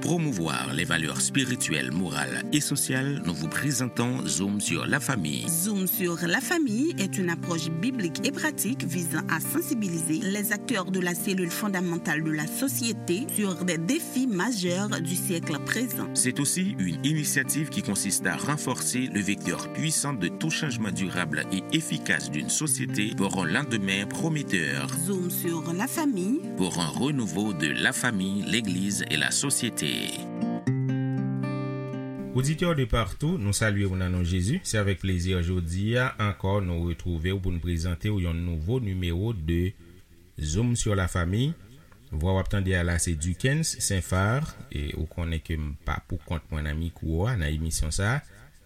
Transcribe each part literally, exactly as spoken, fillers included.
promouvoir les valeurs spirituelles, morales et sociales, nous vous présentons Zoom sur la famille. Zoom sur la famille est une approche biblique et pratique visant à sensibiliser les acteurs de la cellule fondamentale de la société sur des défis majeurs du siècle présent. C'est aussi une initiative qui consiste à renforcer le vecteur puissant de tout changement durable et efficace d'une société pour un lendemain prometteur. Zoom sur la famille. Pour un renouveau de la famille, l'Église et la société. Oditè de partou, nou salye w nan non Jezi. Se avèk plezi jodi a ankò nou retwouve w pou n prezante w yon nouvo nimewo de Zoom sur la famille. Vwa w ap tande a la se Duckens Saint-Phar, e ou konnen ke m pa pou kont mwen nan mikwo a, nan emisyon sa a.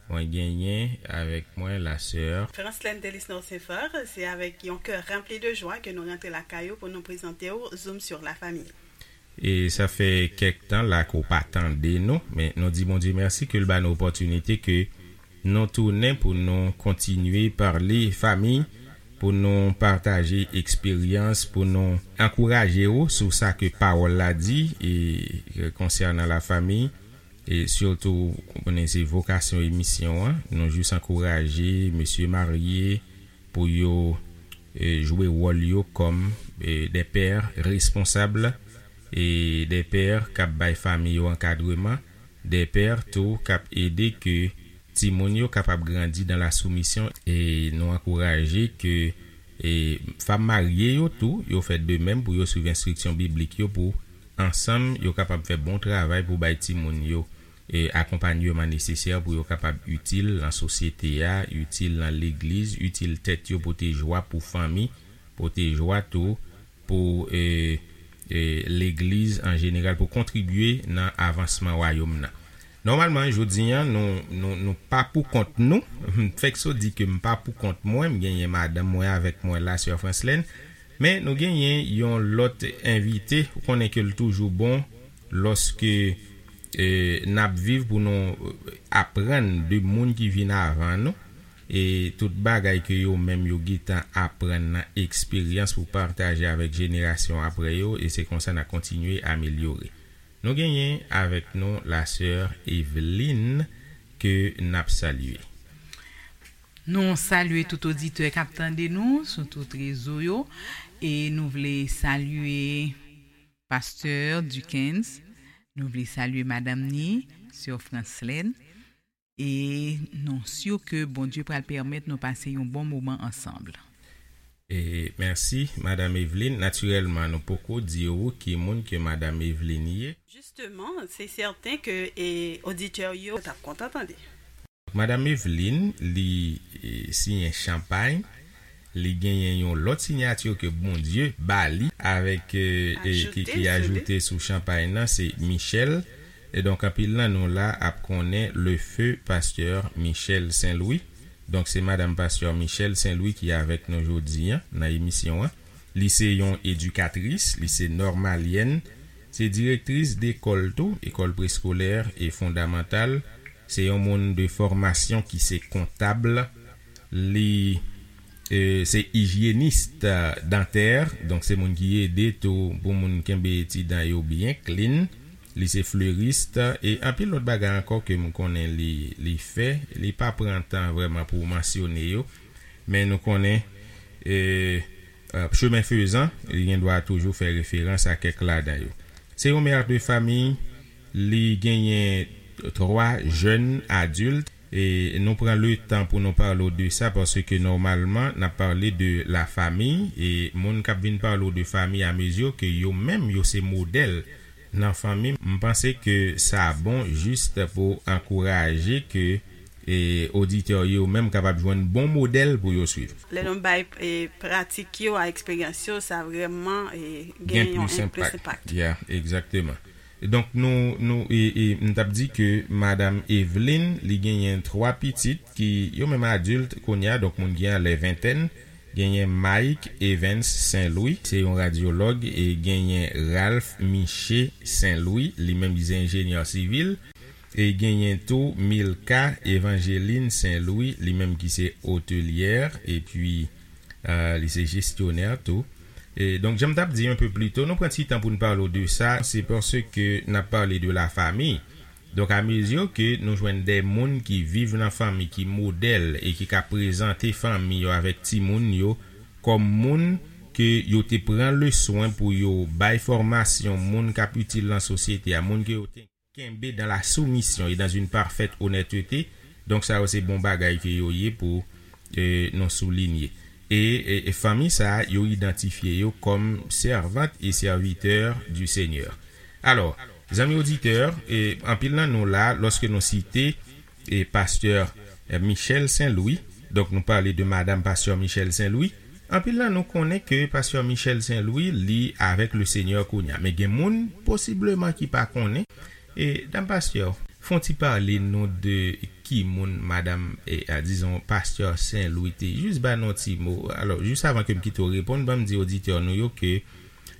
Mwen genyen avèk mwen la sè Franslène Delisnor Saint-Phar, se avèk yon kè ranpli de jwa ke nou rantre lakay ou pou nou prezante w Zoom sur la famille. E sa fè kèk tan la ke w pa tande nou, men nou di Bondye mèsi ke l ba nou opòtinite ke nou tounen pou nou kontinye pale fanmi, pou nou pataje eksperyans, pou nou ankouraje w sou sa ke pawòl la di e konsènan la fanmi. E sitou, ou konnen se vokasyon emisyon an, nou jis ankouraje mesye marye pou yo e, jwe wòl yo kòm e, des pères responsables e des pères k ap bay fanmi yo ankadreman, des pères tou k ap ede ke timoun yo kapab grandi dans la soumission. E nou ankouraje ke e, fanm marye yo tou, yo fè de menm pou yo swiv enstriksyon biblik yo pou ansanm yo kapab fè bon travay pou bay timoun yo e, akonpanyman nesesè pou yo kapab itil nan sosyete a, itil nan legliz, itil tèt yo, pote jwa pou fanmi, pote jwa tou pou e, e, legliz an jeneral, pou kontribye nan avansman wayòm nan. Nòmalman, jodi a, nou, nou, nou pa pou kont nou. M fèk so di ke m pa pou kont mwen, m genyen madanm mwen avèk mwen la, sè Franslène. Men nou genyen yon lòt envite, ou konnen ke l toujou bon lòske e, n ap viv pou nou aprann de moun ki vin avan nou, e tout bagay ke yo menm yo gentan aprann nan eksperyans pou pataje avèk jenerasyon apre yo, e se konsa n a kontinye amelyore. Nou genyen avèk nou la sè Eveline ke n ap salye. Nou salye tout oditè k ap tande nou sou tout rezo yo, e nou vle salye Pastè Duckens, nou vle salye madanm ni, sè Franslène, e nou si ke Bondye pral pèmèt nou pase yon bon moman ansanm. E mèsi, madanm Eveline. Natirèlman, nou poko di w ki moun ke madanm Eveline ye. Jisteman, se sèten ke e, oditè yo t ap kontan tande. Madanm Eveline, li e, siyen Chanpay. Li genyen yon lòt siyati ke Bondye ba li avèk e, e, ki, ki ajoute sou Chanpay nan, se Michel. E donk, anpil nan nou la ap konnen le feu pastè Michel Saint-Louis. Donk, se madanm pastè Michel Saint-Louis ki avèk nou jodi a nan emisyon an. Li se yon edikatris, li se nòmalyèn, se direktris dekòl tou, ekòl preskolè e fondamantal. Se yon moun de fòmasyon ki se kontab. Li e, se ijyenis dantè, donk se moun ki ede tou pou moun kenbe ti dan yo byen clean. Li se fleris e anpil lòt bagay ankò ke m konnen li, li fè. Li pa pran tan vrèman pou mansyone yo, men nou konnen e, e, chemen fezan, li gen dwa toujou fè referans a kèk ladan yo. Se yon mè de fanmi, li genyen twa jèn adilt, e nou pran le tan pou nou pale w de sa, paske nòmalman, n ap pale de la fanmi, e moun k ap vin pale w de fanmi a mezi ke yo menm, yo se modèl nan fanmi. M panse ke sa bon jis pou ankouraje ke e oditè yo menm kapab jwenn bon modèl pou yo swiv. Lè nou bay e, pratik yo a eksperyans yo, sa vrèman e, gen yon plis enpak. Ya, egzakteman. Donk, nou, nou, e, e, m t ap di ke madanm Eveline, li genyen twa pitit ki yo menm adilt kounye a, donk moun ki anlè ventèn, genyen Mike Evans Saint Louis, se yon radyològ, e genyen Ralph Miché Saint Louis, li menm ki se enjenyè sivil, e genyen tou Milka Evangeline Saint Louis, li menm ki se otelyè, epi e, li se jesyonè tou. E, donk, jan m t ap di un peu plus tôt, nou pran ti tan pou n pale w de sa, se paske n ap pale de la famille. Donk, amezi ke nou jwenn de moun ki viv nan fanmi, ki modèl e ki ka prezante fanmi yo avèk timoun yo kòm moun ke yo te pran le swen pou yo bay fòmasyon, moun k ap itil nan sosyete a, moun ke yo te kenbe dans la soumission et dans une parfaite honnêteté. Donk, sa yo se bon bagay ke yo ye pou, e, nou soulinye. E, e, e fanmi sa a, yo idantifye yo kòm servant et serviteur du Seigneur. Alò, zanmi oditè, e, anpil nan nou la, lòske nou site, e, pastè, e, Michel Saint-Louis, donk nou pale de madam pastè Michel Saint-Louis, anpil nan nou konnen ke pastè Michel Saint-Louis, li avèk le Seigneur kounye a. Men gen moun, posibleman, ki pa konnen. E, dam pastè, fè w ti pale nou de ki moun madam, e, a, dizon, pastè Saint-Louis te. Jis ba nou ti mo. Alò, jis avan ke m kite w reponn, ban m di oditè nou yo ke,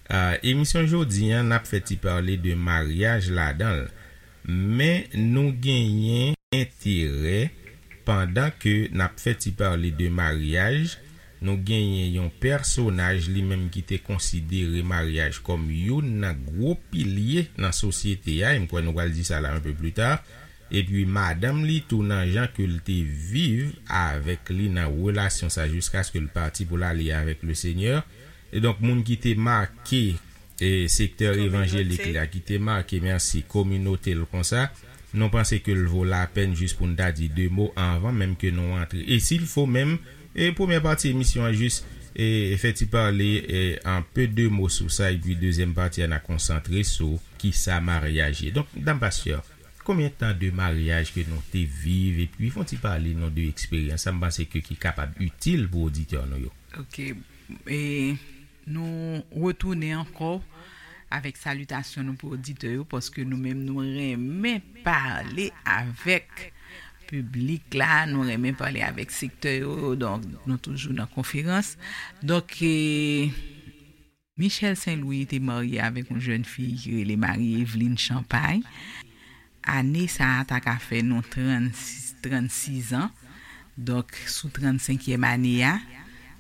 a, emisyon jodi an, n ap fè ti pale de maryaj ladan l. Men nou genyen enterè, pandan ke n ap fè ti pale de maryaj, nou genyen yon pèsonaj li menm ki te konsidere maryaj kòm youn nan gwo pilye nan sosyete a, e m kwè nou pral di sa la un peu plus tard, epi madanm li tou nan jan ke l te viv avèk li nan relasyon sa jiskaske l pati pou l ale avèk le Seigneur. E donk, moun ki te make, e, sektè evanjelik la, ki te make, mèsi, kominote l konsa, nou panse ke l vo lapèn jis pou n ta di de mo anvan menm ke nou antre. E si l fo menm, e premyè pati emisyon an jis, e, fè ti pale, e, un peu de mo sou sa, epi dezyèm pati a n a konsantre sou kisa maryaj ye. Donk, dam pastè, konbyen tan de maryaj ke nou te viv, epi fè w ti pale nou de eksperyans sa, m panse ke ki kapab itil pou oditè nou yo. Ok. E nou retounen ankò avèk salitasyon nou pou oditè yo, paske nou menm nou renmen pale avèk piblik la, nou renmen pale avèk sektè yo, donk nou toujou nan konferans. Donk, e, Michel Saint-Louis te marye avèk yon jèn fi ki rele Marie Eveline Champagne. Ane sa a ta ka fè nou trannsis, trannsis an. Donk, sou trannsenkyèm ane a,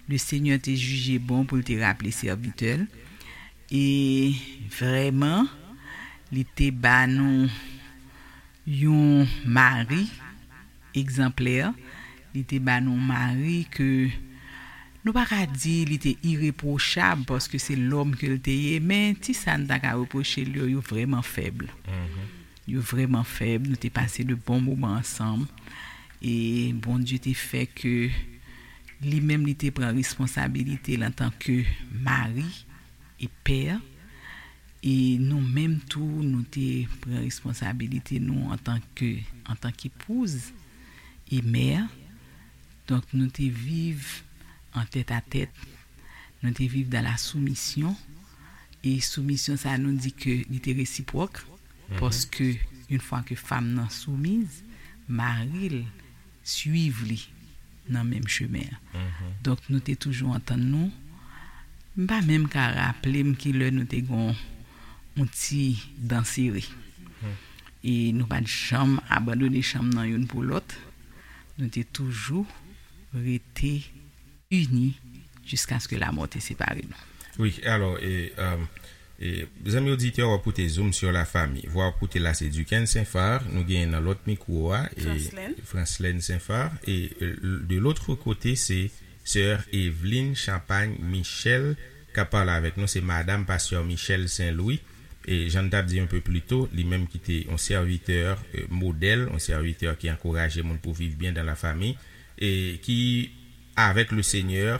le Seigneur te jije bon pou l te raple sèvitè l. E vrèman, li te ba nou yon mari egzanplè. Li te ba nou mari ke nou pa ka di li te irepwochab, paske se lòm ke l te ye, men ti sa n ta ka repwoche l yo, yo vrèman fèb. Yo vrèman fèb. Nou te pase de bon moman ansanm. E Bondye te fè ke li menm, li te pran responsabilite l antanke mari e pè. E nou menm tou, nou te pran responsabilite nou antanke, antanke epouz e mè. Donk, nou te viv an tèt a tèt. Nou te viv dans la soumission. E soumisyon sa, nou di ke li te resipwòk. Paske, yon fwa ke fanm nan soumiz, mari l swiv li nan menm chemen an. Donk, nou te toujou antann nou. M pa menm ka raple m ki lè nou te gon yon ti dan sere. E nou pa t janm abandone chanm nan youn pou lòt. Nou te toujou rete ini jiskaske lamò te separe nou. Wi, alò, e, um, e, zanmi oditè, w ap koute Zoom sur la famille. Vwa w ap koute la, se Duquesne Saint-Phar. Nou genyen nan lòt mikwo a, e, Francelène. Francelène Saint-Phar. E, e, de l'autre côté, se sè Eveline Champagne Michel k ap pale avèk nou. Se madam pastè Michel Saint-Louis. E jan n t ap di un peu plus tôt, li menm ki te yon sèvitè, e, modèl, yon sèvitè ki ankouraje moun pou viv byen dans la famille, e ki avèk le Seigneur,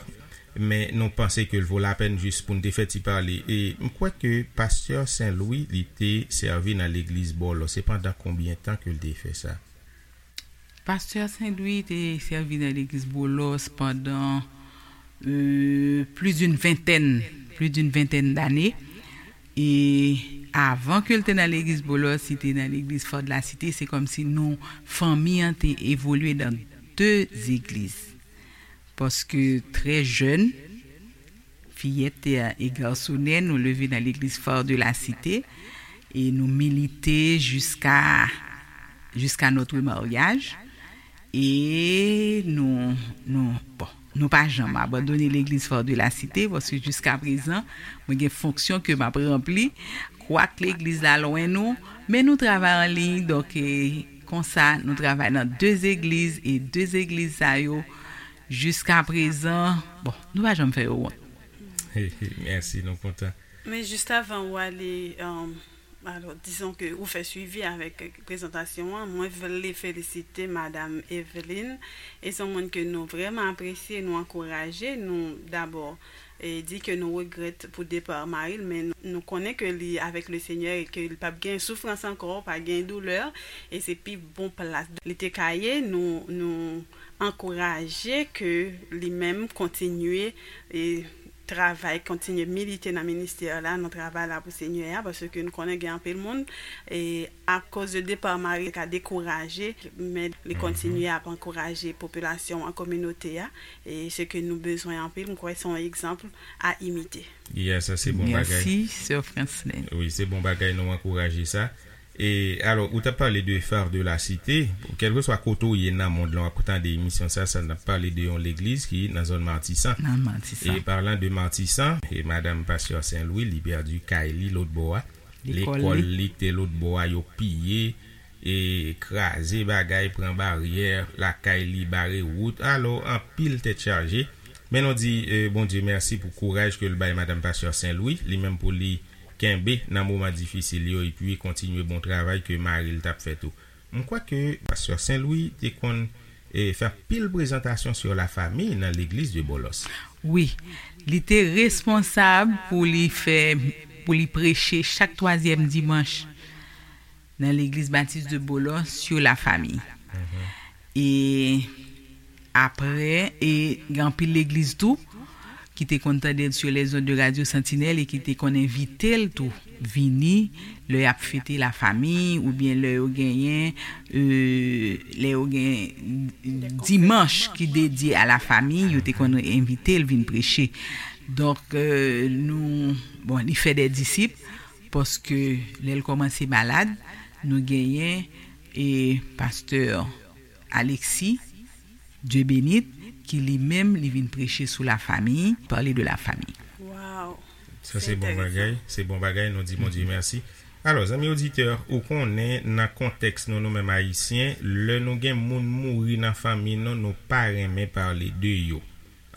men nou panse ke l vo lapèn jis pou n te fè ti pale. E m kwè ke pastè Saint-Louis, li te sèvi nan legliz Bòlò. Se pandan konbyen tan ke l te fè sa? Pastè Saint-Louis te sèvi nan legliz Bòlò pandan, e, plus d'une vingtaine, plus d'une vingtaine d'années. E avan ke l te nan legliz Bòlò, li te nan legliz Fò de la Site, se kòmsi nou, fanmi an te evolye nan de zegliz. Paske trè jèn, fiyèt e garsonè, nou leve nan legliz Fò de la Site, e nou milite jiska, jiska notre mariage. E nou, nou, bon, Nou pa janm abandone legliz Phare de la Cité, paske jiska prezan, mwen gen fonksyon ke m ap ranpli. Kwak legliz la lwen nou, men nou travay an liy, donk, e, konsa, nou travay nan de zegliz, e de zegliz sa yo, jiska prezan, bon, nou pa janm fè yo wont. Mèsi, nou kontan. Men jis avan ou ale, um, alò, dizon ke ou fè swivi avèk prezantasyon an, mwen vle felisite Madam Evelyn. E se yon moun ke nou vrèman apresye, nou ankouraje, nou dabò e di ke nou regrèt pou depa mari l, men nou, nou konnen ke li avèk le Senyè e ke li p ap gen soufrans ankò, pa gen doulè, e se pi bon plas li te ka ye. Nou, nou ankouraje ke li menm kontinye e travay, kontinye milite nan ministè la, nan travay la pou Senyè a, paske nou konnen gen anpil moun e akoz de depa mari ka dekouraje, men li kontinye ap ankouraje popilasyon an, kominote a, e se ke nou bezwen anpil, m kwè se yon egzanp a imite. Yeah, sa se bon bagay. Mèsi, Sè Franslin. Wi, se bon bagay, nou ankouraje sa. E alò, ou t ap pale de Phare de la Cité, kèlkeswa kote w ye nan mond lan, w ap tande emisyon sa, sa n ap pale de yon legliz ki nan zòn Matisan. Nan Matisan. E palan de Matisan, e madanm pastè Sen Lwi, li pèdi kay li lòt bò a. Lekòl li te lòt bò a, yo piye, e kraze bagay, pran baryè, lakay li bare wout. Alò, anpil tèt chaje. Men nou di, e, Bondye mèsi pou kouraj ke l bay madanm pastè Sen Lwi, li menm pou li kenbe nan moman difisil yo, epi kontinye bon travay ke mari l t ap fè tou. M kwè ke pastè Sen Lwi te konn, e, fè anpil prezantasyon sur la famille nan legliz de Bòlòs. Wi, li te responsab pou li fè, pou li preche chak twazyèm dimanch nan legliz batis de Bòlòs sur la famille. E apre, e gen anpil legliz tou ki te konn tande l sur les ondes de Radio Sentinelle e ki te konn envite l tou vini lè y ap fete la famille oubyen lè yo genyen, e, lè yo gen dimanch ki dedye a la famille, yo te konn envite l vin preche. Donk, e, nou, bon, li fè de disip, paske lè l kòmanse malad, nou genyen, e, pastè Alexis Dieubenit, ki li menm, li vin preche sou la famille, parler de la famille. Wow. Sa se bon bagay, se bon bagay, nou di Bondye mèsi. Alò, zanmi oditè, ou konnen nan kontèks nou, nou menm Ayisyen, lè nou gen moun mouri nan fanmi nou, nou pa renmen pale de yo.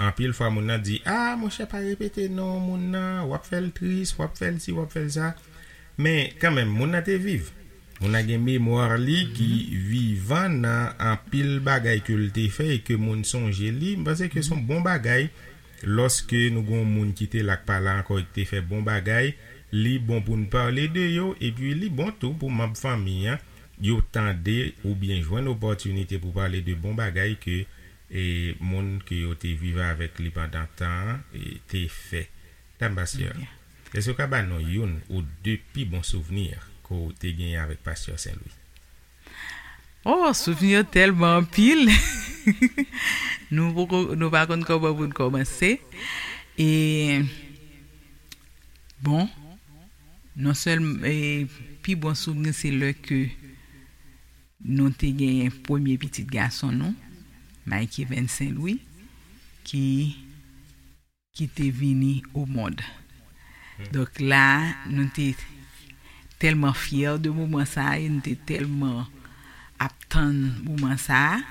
Anpil fwa moun nan di, "Ah, monchè, pa repete non moun nan, w ap fè l tris, w ap fè l si, w ap fè l sa." Men kanmenm, moun nan te viv. Moun nan gen memwa li ki vivan nan anpil bagay ke l te fè e ke moun sonje li. M panse ke se yon bon bagay lòske nou gen yon moun ki te la k pa la ankò e ki te fè bon bagay. Li bon pou n pale de yo, epi li bon tou pou manm fanmi an yo tande oubyen jwenn opòtinite pou pale de bon bagay ke, e, moun ke yo te viv avèk li pandan tan an, e, te fè. Dam Bastien, èske w ka ba nou youn ou de pi bon souvni ke w te genyen avèk pastè Sen Lwi? Oh, souvni yo tèlman anpil. Nou poko, nou pa konn kòman pou n kòmanse. E, bon, non sèlman, e, pi bon souvni se lè ke nou te genyen premye pitit gason nou, Mike Evans Sen Lwi, ki, ki te vini o mond. Donk la, nou te tèlman fyè de moman sa a, e nou te tèlman ap tann moman sa a,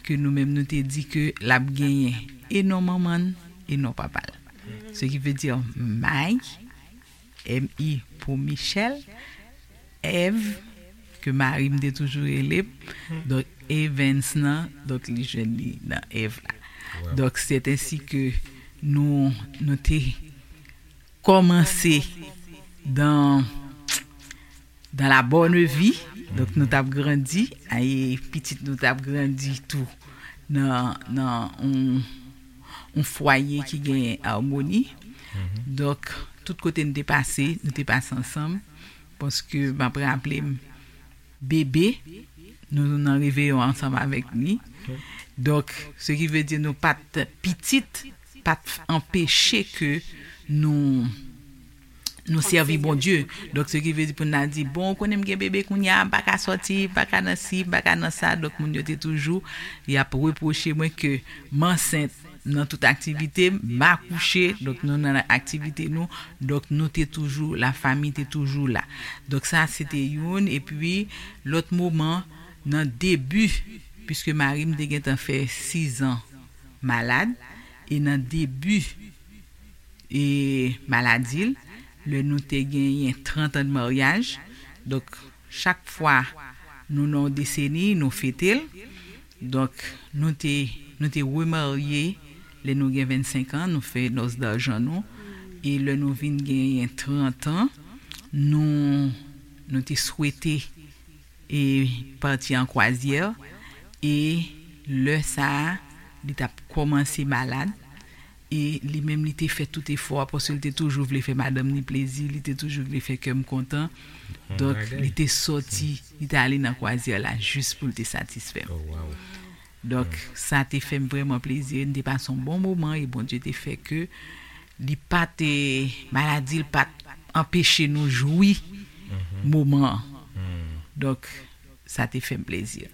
ke nou menm nou te di ke l ap genyen e non manman l, e non papa l. Ce qui veut dire Mike, M I pou Michel, Èv, ke mari m te toujou rele m, donk Evans nan, donk li jwenn li nan Èv la. Donk, c'est ainsi que nou, nou te kòmanse dans, dans la bonne vie. Donk, nou t ap grandi, e pitit nou t ap grandi tou nan, nan yon, yon fwaye ki gen amoni. Donk, tout kote n te pase, nou te pase ansanm. Paske m ap raple m, bebe, nou nan reveyon ansanm avèk li. Donk, ce qui veut dire nou pa t pitit, pa t anpeche ke nou, nou sèvi Bondye. Donk, ce qui veut dire pou n al di, bon, ou konnen m gen bebe kounye a, m pa ka sòti, m pa ka nan si, m pa ka nan sa. Donk, moun yo te toujou, y ap repwoche mwen ke m ansent nan tout aktivite, m akouche, donk nou nan aktivite nou, donk nou te toujou, lafanmi te toujou la. Donk sa se te youn, epi lòt moman, nan debi, piske mari m te gentan fè sizan malad, e nan debi e maladi l, lè nou te genyen trant an de maryaj. Donk, chak fwa nou nan yon deseni, nou fete l. Donk, nou te, nou te remarye lè nou gen vennsenk an, nou fè nòs dajan nou. E lè nou vin genyen trant an, nou, nou te swete e pati an kwazyè, e lè sa a, li t ap kòmanse malad, e li menm li te fè tout efò a, paske li te toujou vle fè madanm li plezi, li te toujou vle fè kè m kontan. Donk, li te sòti, li te ale nan kwazyè la jis pou l te satisfè m. Donk, sa te fè m vrèman plezi. N te pase yon bon moman e Bondye te fè ke li pa te, maladi l pa t anpeche nou jwi moman an. Donk, sa te fè m plezi.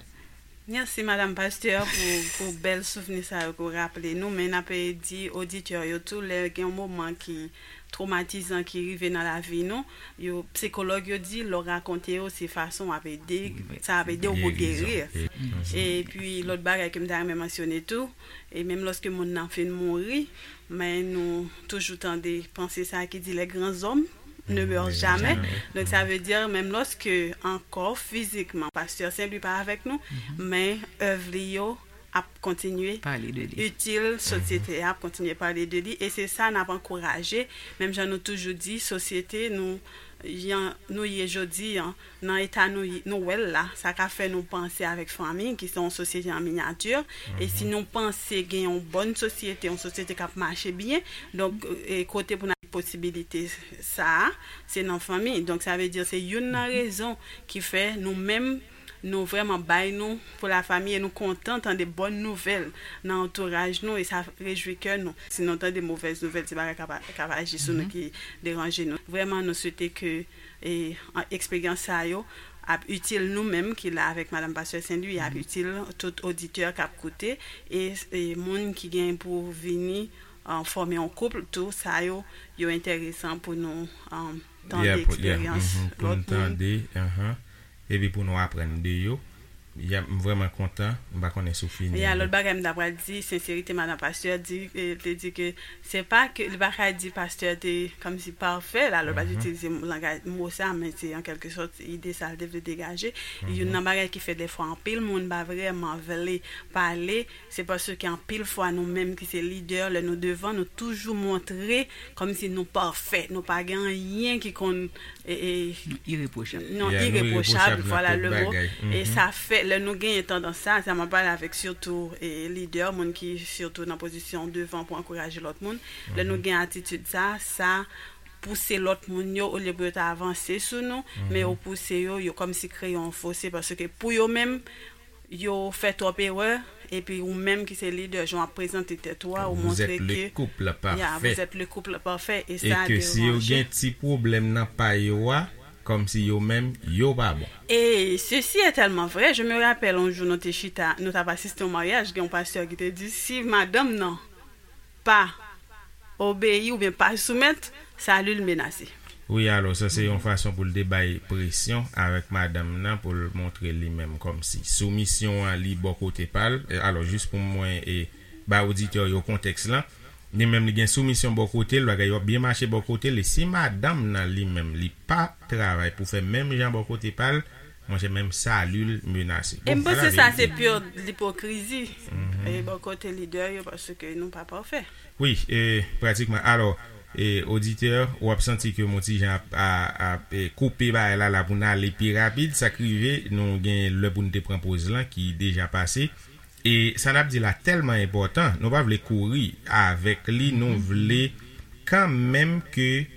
Mèsi, Madanm Pastè, pou, pou bèl souvni sa yo ke w raple nou. Men n ap di oditè yo tou, lè gen yon moman ki twomatizan ki rive nan lavi nou, yo, sikològ yo di, lè w rakonte yo, se fason w ap ede, sa ap ede w pou geri. Epi, lòt bagay ke m ta renmen mansyone tou, e menm lòske moun nan fin mouri, men nou toujou tande panse sa ki di, les grands hommes ne meurent jamais. Donk, sa vle di, menm lòske ankò fizikman, Pastè Sen Lwi pa avèk nou, men èv li yo ap kontinye itil sosyete a, ap kontinye pale de li, e se sa n ap ankouraje. Menm jan nou toujou di, sosyete nou, jan nou ye jodi a, nan eta nou, nou wè l la, sa ka fè nou panse avèk fanmi, ki se yon sosyete an minyati, e si nou panse gen yon bòn sosyete, yon sosyete k ap mache byen, donk, e kote pou n al posibilite sa a, se nan fanmi. Donk, sa vle di, se youn nan rezon ki fè nou menm, nou vrèman bay nou pou lafanmi e nou kontan tande bòn nouvèl nan antouraj nou e sa rejwi kè nou. Si nou tande movèz nouvèl, se bagay k ap, k ap aji sou nou ki deranje nou. Vrèman, nou swete ke e, an, eksperyans sa yo ap itil nou menm ki la avèk Madanm Pastè Sen Lwi, ap itil tout oditè k ap koute e, e moun ki gen pou vini, an, fòme yon koup tou, sa yo, yo enteresan pou nou, an, tande eksperyans lòt moun. Epi pou nou aprann de yo. Ya, m vrèman kontan, m pa konnen si w fini. Ya, lòt bagay m ta pral di, senserite madan pastè di, eh, te di ke se pa ke, li pa ka di pastè te kòmsi pafè, la, lòt pa itilize langaj, mo sa, men se an kèlke sòt ide sa l te vle degaje. Youn nan bagay ki fè dèfwa anpil moun pa vrèman vle pale, se paske anpil fwa nou menm ki se lidè, lè nou devan, nou toujou montre kòmsi nou pafè, nou pa gen anyen ki konn, e, e, Nou irepwochab. Non, irepwochab, vwala le mo. E sa fè, lè nou genyen tandans sa, sa m ap pale avèk sitou, e, lidè, moun ki sitou nan pozisyon devan pou ankouraje lòt moun, lè nou gen atitid sa, sa pouse lòt moun yo, olye pou yo ta avanse sou nou, men yo pouse yo, yo kòmsi kreye yon fose, paske pou yo menm, yo fè twòp erè, epi ou menm ki se lidè, jan w ap prezante tèt ou a, ou montre ke, ya, vous êtes le couple parfait, e sa deranje. E ke si yo gen ti pwoblèm nan pa yo a, kòmsi yo menm, yo pa bon. Et ceci est tellement vrai, je me rappelle yon jou nou te chita, nou t ap asiste yon maryaj, gen yon pastè ki te di, si madanm nan pa obeyi oubyen pa soumèt, sali l menase. Wi, alò, sa se yon fason pou l te bay presyon avèk madanm nan, pou l montre li menm kòmsi soumisyon an li bò kote pa l. E, alò, jis pou mwen, e, ba oditè yo kontèks lan, li menm li gen soumisyon bò kote l, bagay yo ap byen mache bò kote l, e si madanm nan li menm, li pa travay pou fè menm jan bò kote pa l, monchè, menm sali l menase. E m panse sa se pure lipokrizi, e, bò kote lidè yo, paske nou pa pafè. Wi, e, pratikman. Alò, e, oditè, w ap santi ke m yon ti jan ap, a, ap, e, koupe bagay la, la pou n ale pi rapid. Sa k rive, nou gen lè pou n te pran poz lan ki deja pase. E sa n ap di la tèlman enpòtan, nou pa vle kouri avèk li, nou vle kanmenm ke,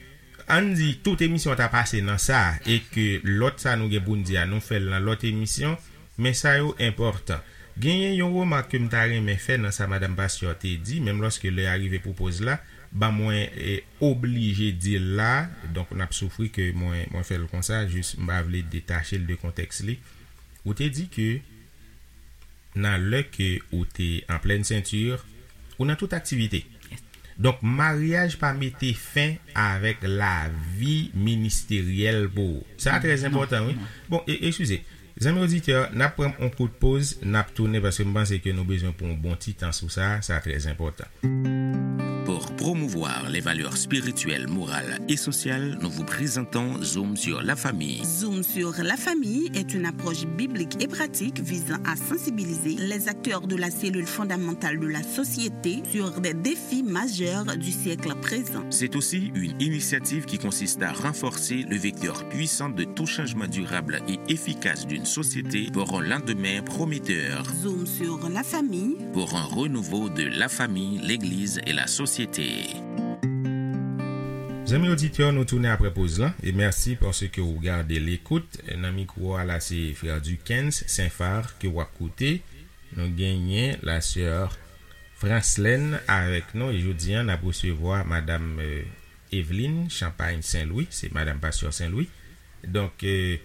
ann di, tout emisyon an ta pase nan sa, e ke lòt sa nou gen pou n di a, nou fè l nan lòt emisyon, men sa yo enpòtan. Genyen yon remak ke m ta renmen fè nan sa madanm pastè te di, menm lòske lè a rive pou poz la, ban mwen, e, oblije di l la, donk n ap soufri ke mwen, mwen fè l konsa, jis m pa vle detache l de kontèks li. Ou te di ke nan lè ke ou te an plèn senti, Ou nan tout aktivite. Donk, maryaj pa mete fen avèk lavi ministeryèl pou ou. Sa trè enpòtan, wi. Bon, e, eskize. Zanmi oditè, n ap pran yon kout poz, n ap tounen paske m panse ke nou bezwen pran yon bon ti tan sou sa, sa trè enpòtan. Pour promouvoir les valeurs spirituelles, morales et sociales, nous vous présentons Zoom sur la famille. Zoom sur la famille est une approche biblique et pratique visant à sensibiliser les acteurs de la cellule fondamentale de la société sur des défis majeurs du siècle présent. C'est aussi une initiative qui consiste à renforcer le vecteur puissant de tout changement durable et efficace d'une société pour un lendemain prometteur. Zoom sur la famille. Pour un renouveau de la famille, l'Église et la société. Zanmi oditè, nou tounen apre poz lan e mèsi paske ou gade lekout. Nan mikwo a la se frè Duckens Saint Phar ke w ap koute. Nou genyen la sè Franslène avèk nou e jodi a n ap resevwa madanm Eveline Champagne Saint Louis, se madanm pastè Saint Louis. Donk, e,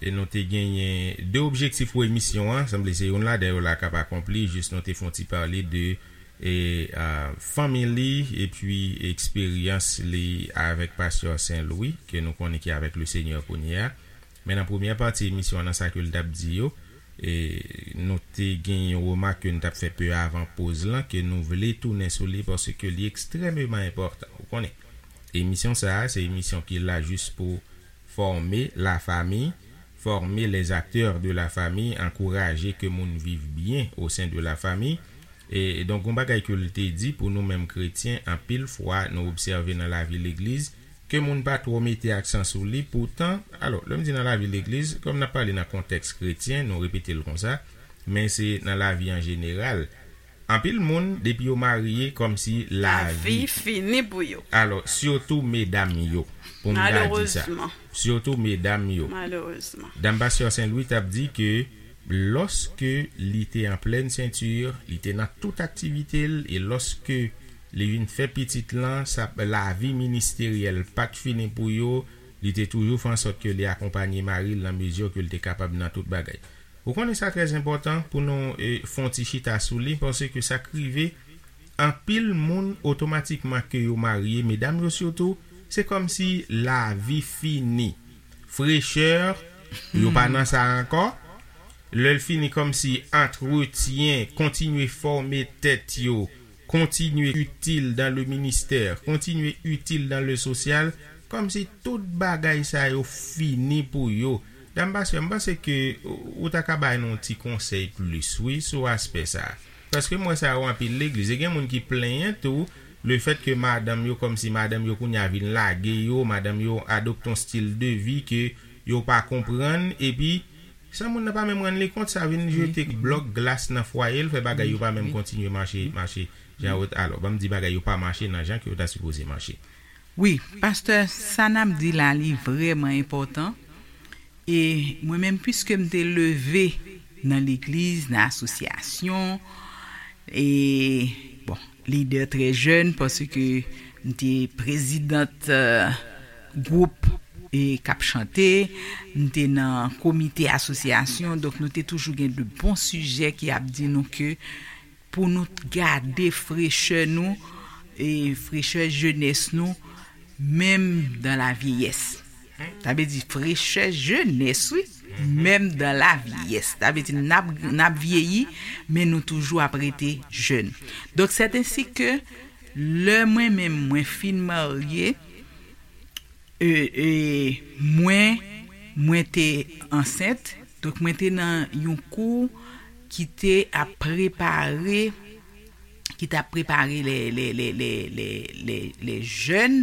e nou te genyen de objektif pou emisyon an, sanble se youn ladan yo la k ap akonpli, jis nou te fè yon ti pale de e, a, fanmi li epi eksperyans li avèk pastè Saint Louis, ke nou konnen ki avèk Lesenyè kounye a. Men nan premyè pati emisyon an, nan sa ke l t ap di yo, e, nou te gen yon remak ke n t ap fè pe avan poz lan, ke nou vle tounen sou li paske li ekstrèmeman enpòtan. Ou konnen, emisyon sa a, se emisyon ki la jis pou fòme lafanmi, former les acteurs de la famille, ankouraje ke moun viv byen o sen de lafanmi. E donk, yon bagay ke l te di pou nou menm kretyen, anpil fwa nou obsève nan lavi legliz ke moun pa twò mete aksan sou li. Poutan, alò, lè m di nan lavi legliz, kòm n ap pale nan kontèks kretyen, nou repete l konsa, men se nan lavi an jeneral. Anpil moun, depi yo marye, kòmsi lavi fini pou yo. Alò, sitou medam yo, pou m ta di sa. Sitou medam yo. Dam pastè Saint Louis t ap di ke lòske li te an plèn senti, li te nan tout aktivite l, e lòske li vin fè pitit lan, sa, lavi ministeryèl pa t fini pou yo, li te toujou fè ansòt ke li akonpanye mari l nan mezi ke l te kapab nan tout bagay. Ou konnen sa trè enpòtan pou nou e, fè yon ti chita sou li, paske sa k rive, anpil moun otomatikman ke yo marye, medam yo sitou, se kòmsi lavi fini. Frechè, yo pa nan sa ankò. Lè l fini, kòmsi antretyen, kontinye fòme tèt yo, kontinye itil dan le ministè, kontinye itil dan le sosyal, kòmsi tout bagay sa yo fini pou yo. Dam pastè, m panse ke ou ta ka bay nou yon ti konsèy plis, wi, sou aspè sa a. Paske m wè sa yo anpil legliz. E gen moun ki plenyen tou, lefèt ke madanm yo, kòmsi madanm yo kounye a vin lage yo, madanm yo adopte yon stil de vi ke yo pa konprann, epi san moun nan pa menm rann li kont, sa vin jete blòk glas nan fwaye l, fè bagay yo pa menm kontinye mache, mache jan yo, alò, ban m di bagay yo pa mache nan jan ke yo ta sipoze mache. Wi, pastè, sa n ap di la, li vrèman enpòtan. E mwen menm, piske m te leve nan legliz, nan asosyasyon, e, bon, lidè trè jèn, paske m te prezidant gwoup e k ap chante, m te nan komite asosyasyon, donk nou te toujou gen de bon sijè ki ap di nou ke pou nou gade frechè nou, e frechè jenès nou, menm dan lavyeyès. Sa vle di frechè jenès, wi, menm dan lavyeyès. Sa vle di n ap, n ap vyeyi, men nou toujou ap rete jèn. Donk, sèt ensi ke lè mwen menm mwen fin marye, e, e, mwen, mwen te ansent, donk mwen te nan yon kou ki te ap prepare, ki t ap prepare lè, lè, lè, lè, lè, lè, lè jèn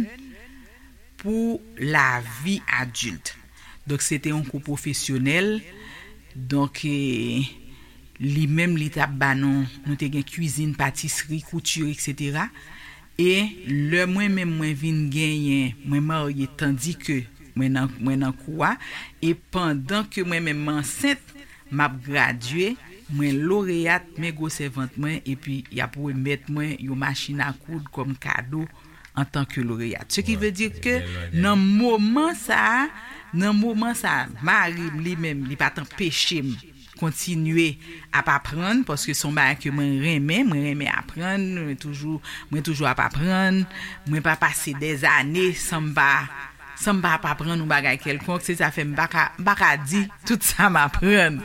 pou lavi adilt. Donk, se te yon kou pwofesyonèl. Donk, e, li menm, li t ap ba nou, nou te gen kwizin, patisri, kouti, etsetera. E lè mwen menm mwen vin genyen, mwen marye, tandike mwen nan, mwen nan kou a, e pandan ke mwen menm m ansent, m ap gradye, mwen loreyat, men gwosè vant mwen, epi y ap remèt mwen yon machin a koud kòm kado antanke loreyat. Ce qui veut dire ke nan moman sa a, nan moman sa a, mari m li menm, li pa t anpeche m kontinye ap aprann, paske se yon bagay ke mwen renmen, mwen renmen aprann, mwen toujou, mwen toujou ap aprann, mwen pa pase dèzane san m pa, san m pa ap aprann yon bagay kèlkonk, se sa fè m pa ka, m pa ka di tout sa m aprann.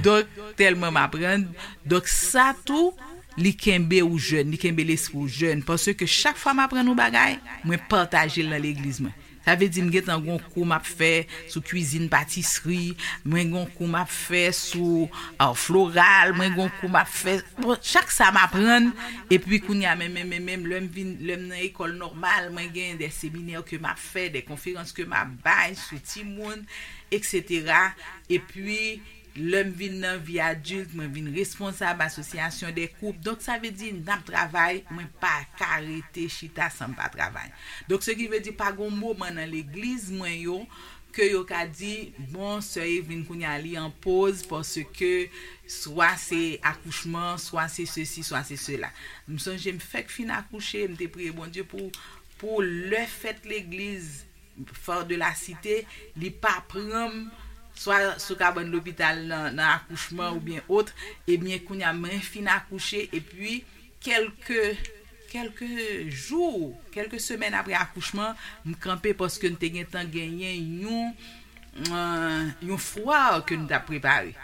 Donk, tèlman m aprann, donk sa tou, li kenbe ou jèn, li kenbe lespri w jèn, paske chak fwa m aprann yon bagay, mwen pataje l nan legliz mwen. Sa vle di m gentan gon kou m ap fè sou kwizin patisri, mwen gon kou m ap fè sou art floral, mwen gon kou m ap fè, bon, chak sa m aprann, epi kounye a menm, menm, menm, menm, lè m vin, lè m nan ekòl nòmal, mwen gen de seminè ke m ap fè, de konferans ke m ap bay sou timoun, etsetera. Epi, lè m vin nan vi adilt, mwen vin responsab asosyasyon de koup. Donk, sa vle di, n ap travay, mwen pa ka rete chita san m pa travay. Donk, se ki vle di, pa gon moman nan legliz mwen yo, ke yo ka di, bon, sè Evelyn kounye a li an poz, paske swa se akouchman, swa se sesi, swa se sela. M sonje m fèk fin akouche, m te priye Bondye pou, pou lè fèt legliz, Fò de la Site, li pa pran m, swa sou kabann lopital nan, nan akouchman oubyen ot, ebyen, kounye a, mwen fin akouche, epi kèlke, kèlke jou, kèlke semèn apre akouchman, m kanpe paske n te gentan genyen yon, eh, yon fwa ke n t ap prepare.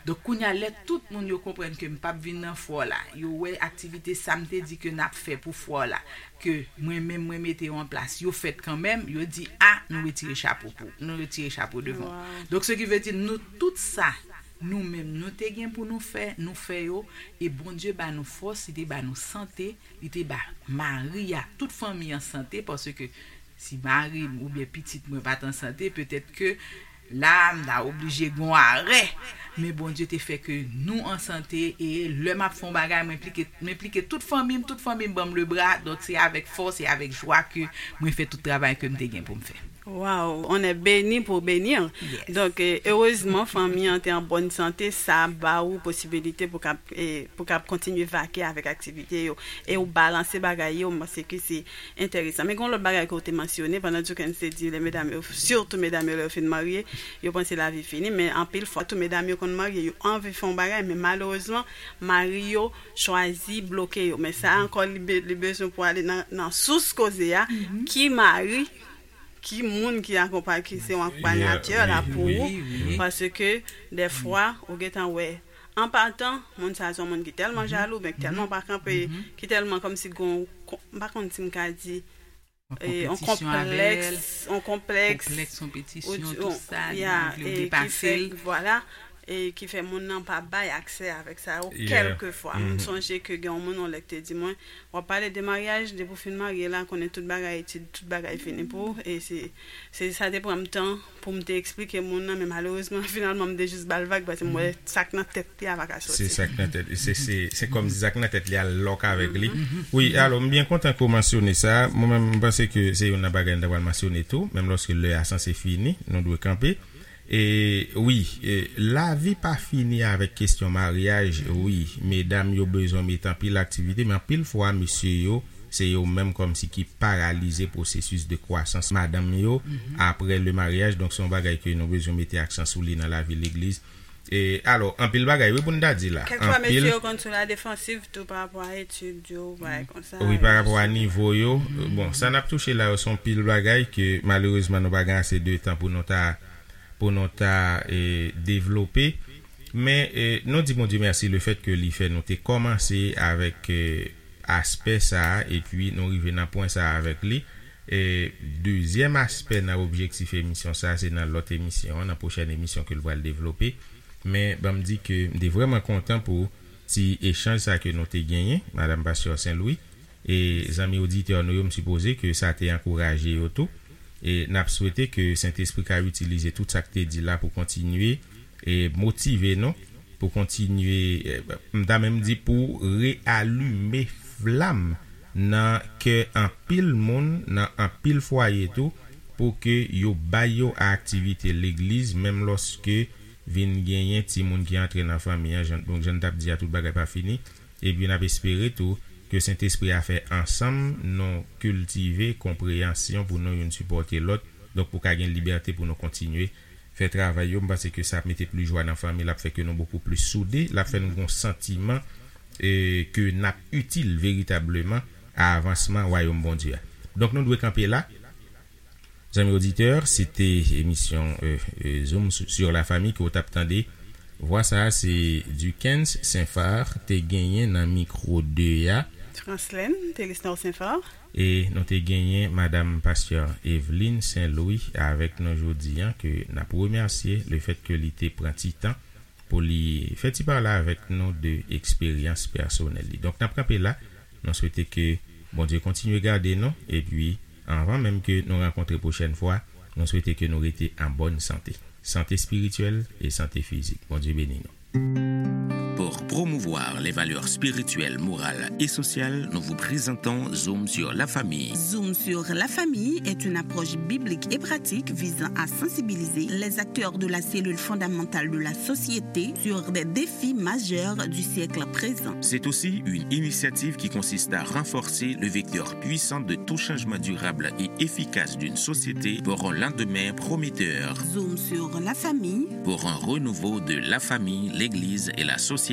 Donk, kounye a, lè tout moun yo konprann ke m p ap vin nan fwa la, yo wè aktivite sa m te di ke n ap fè pou fwa la, ke mwen menm mwen mete yo an plas, yo fèt kanmenm, yo di, a, nou retire chapo pou, nou retire chapo devan. Donk, se ki vle di, nou tout sa, nou menm, nou te gen pou nou fè, nou fè yo, e Bondye ba nou fòs, li te ba nou sante, li te ba mari a, tout fanmi an sante, paske si mari m oubyen pitit mwen pa t an sante, petèt ke la, m ta oblije gon arè. Men Bondye te fè ke nou an sante, e lè m ap fè yon bagay, m enplike, m enplike tout fanmi m, tout fanmi m ban m lebra. Donk, se avèk fòs e avèk jwa ke mwen fè tout travay ke m te gen pou m fè. Waw, on est béni pour bénir. Donk, eh, erezman, fanmi an te an bòn sante, sa ba ou posibilite pou k ap, eh, pou k ap kontinye vake avèk aktivite yo. E ou balanse bagay yo, m panse ke se enteresan. Men gen yon lòt bagay ke w te mansyone, pandan Jukens te di, lè medam yo, sitou medam yo, lè yo fin marye, yo panse lavi fini, men anpil fwa, tou medam yo konn marye, yo anvi fè yon bagay, men malerezman, mari yo chwazi bloke yo. Men sa ankò, li be-, li bezwen pou ale nan, nan sous koze a, ki mari, ki moun ki akonpay, ki se yon akonpayatè la pou ou, paske dèfwa, ou gentan wè, an patan, moun sa a se yon moun ki tèlman jalou, oubyen ki tèlman pa kanpe, ki tèlman kòmsi gon, m pa konn si m ka di, yon konplèks, yon konplèks, yon konpetisyon, tout sa, li vle depase l. Vwala, e ki fè moun nan pa bay aksè avèk sa yo, kèlkefwa. M sonje ke gen yon moun yon lè ki te di mwen, w ap pale de maryaj, depi w fin marye la, konnen tout bagay etid, tout bagay fini pou ou, e se, se sa te pran m tan pou m te eksplike moun nan, men malerezman, finalman, m te jis ba l vag, paske m wè sa k nan tèt li a pa ka sòti. Se sa k nan tèt, se, se, se kòm si sa k nan tèt li a lòk avèk li. Wi, alò, m byen kontan ke w mansyone sa. Mwen menm, m panse ke se youn nan bagay n ta pral mansyone tou, menm lòske lè a sanse fini, nou dwe kanpe. E wi, e, lavi pa fini avèk kesyon maryaj, wi. Medam yo bezwen mete anpil aktivite, men anpil fwa, mesye yo, se yo menm kòmsi ki paralize pwosesis de kwasans madanm yo apre le maryaj. Donk, se yon bagay ke nou bezwen mete aksan sou li nan lavi legliz. E, alò, anpil bagay, wi, pou n ta di la. Kèlkefwa, mesye yo konn sou la defansiv tou pa rapò a etid yo, bagay konsa. Wi, pa rapò a nivo yo. Bon, sa n ap touche la yo, se yon pil bagay ke, malerezman, nou pa gen ase de tan pou nou ta, pou nou ta, e, devlope. Men, e, nou di Bondye mèsi lefèt ke li fè nou te kòmanse avèk, e, aspè sa a, epi nou rive nan pwen sa a avèk li. E, dezyèm aspè nan objektif emisyon sa a, se nan lòt emisyon an, nan pwochèn emisyon ke l pral devlope. Men, ban m di ke m te vrèman kontan pou ti echanj sa a ke nou te genyen, Madanm Pastè Sen Lwi. E zanmi oditè nou yo, m sipoze ke sa te ankouraje yo tou. E n ap swete ke Sentespri ka itilize tout sa k te di la pou kontinye e motive nou, pou kontinye, e, m ta menm di pou reyalime flam nan kè anpil moun, nan anpil fwaye tou, pou ke yo bay yo a aktivite legliz, menm lòske vin genyen timoun ki antre nan fanmi an, jan, donk, jan n t ap di a, tout bagay pa fini. Epi n ap espere tou ke Sentespri a fè ansanm nou kiltive konpreyansyon pou nou youn sipòte lòt, donk pou ka gen libète pou nou kontinye fè travay yo, m panse ke sa ap mete plis jwa nan fanmi, l ap fè ke nou bokou plis soude, l ap fè nou gen yon santiman e, ke n ap itil veritableman a avansman Wayòm Bondye a. Donk, nou dwe kanpe la. Zanmi oditè, se te emisyon e, e, Zoom sur la famille ke w t ap tande. Vwa sa a, se Duckens Saint-Phar te genyen nan mikwo de a. Franslèn Telisnor Saint-Phar. E nou te genyen Madam Pastè Eveline Saint-Louis avèk nou jodi a, ke n ap remèsye lefèt ke li te pran ti tan pou li fè ti pale avèk nou de eksperyans pèsonèl li. Donk, n ap kanpe la. Nou swete ke Bondye kontinye gade nou. Epi, anvan menm ke nou rankontre pwochèn fwa, nou swete ke nou rete an bòn sante. Sante espirityèl e sante fizik. Bondye beni nou. Pour promouvoir les valeurs spirituelles, morales et sociales, nous vous présentons Zoom sur la famille. Zoom sur la famille est une approche biblique et pratique visant à sensibiliser les acteurs de la cellule fondamentale de la société sur des défis majeurs du siècle présent. C'est aussi une initiative qui consiste à renforcer le vecteur puissant de tout changement durable et efficace d'une société pour un lendemain prometteur. Zoom sur la famille. Pour un renouveau de la famille, l'Église et la société.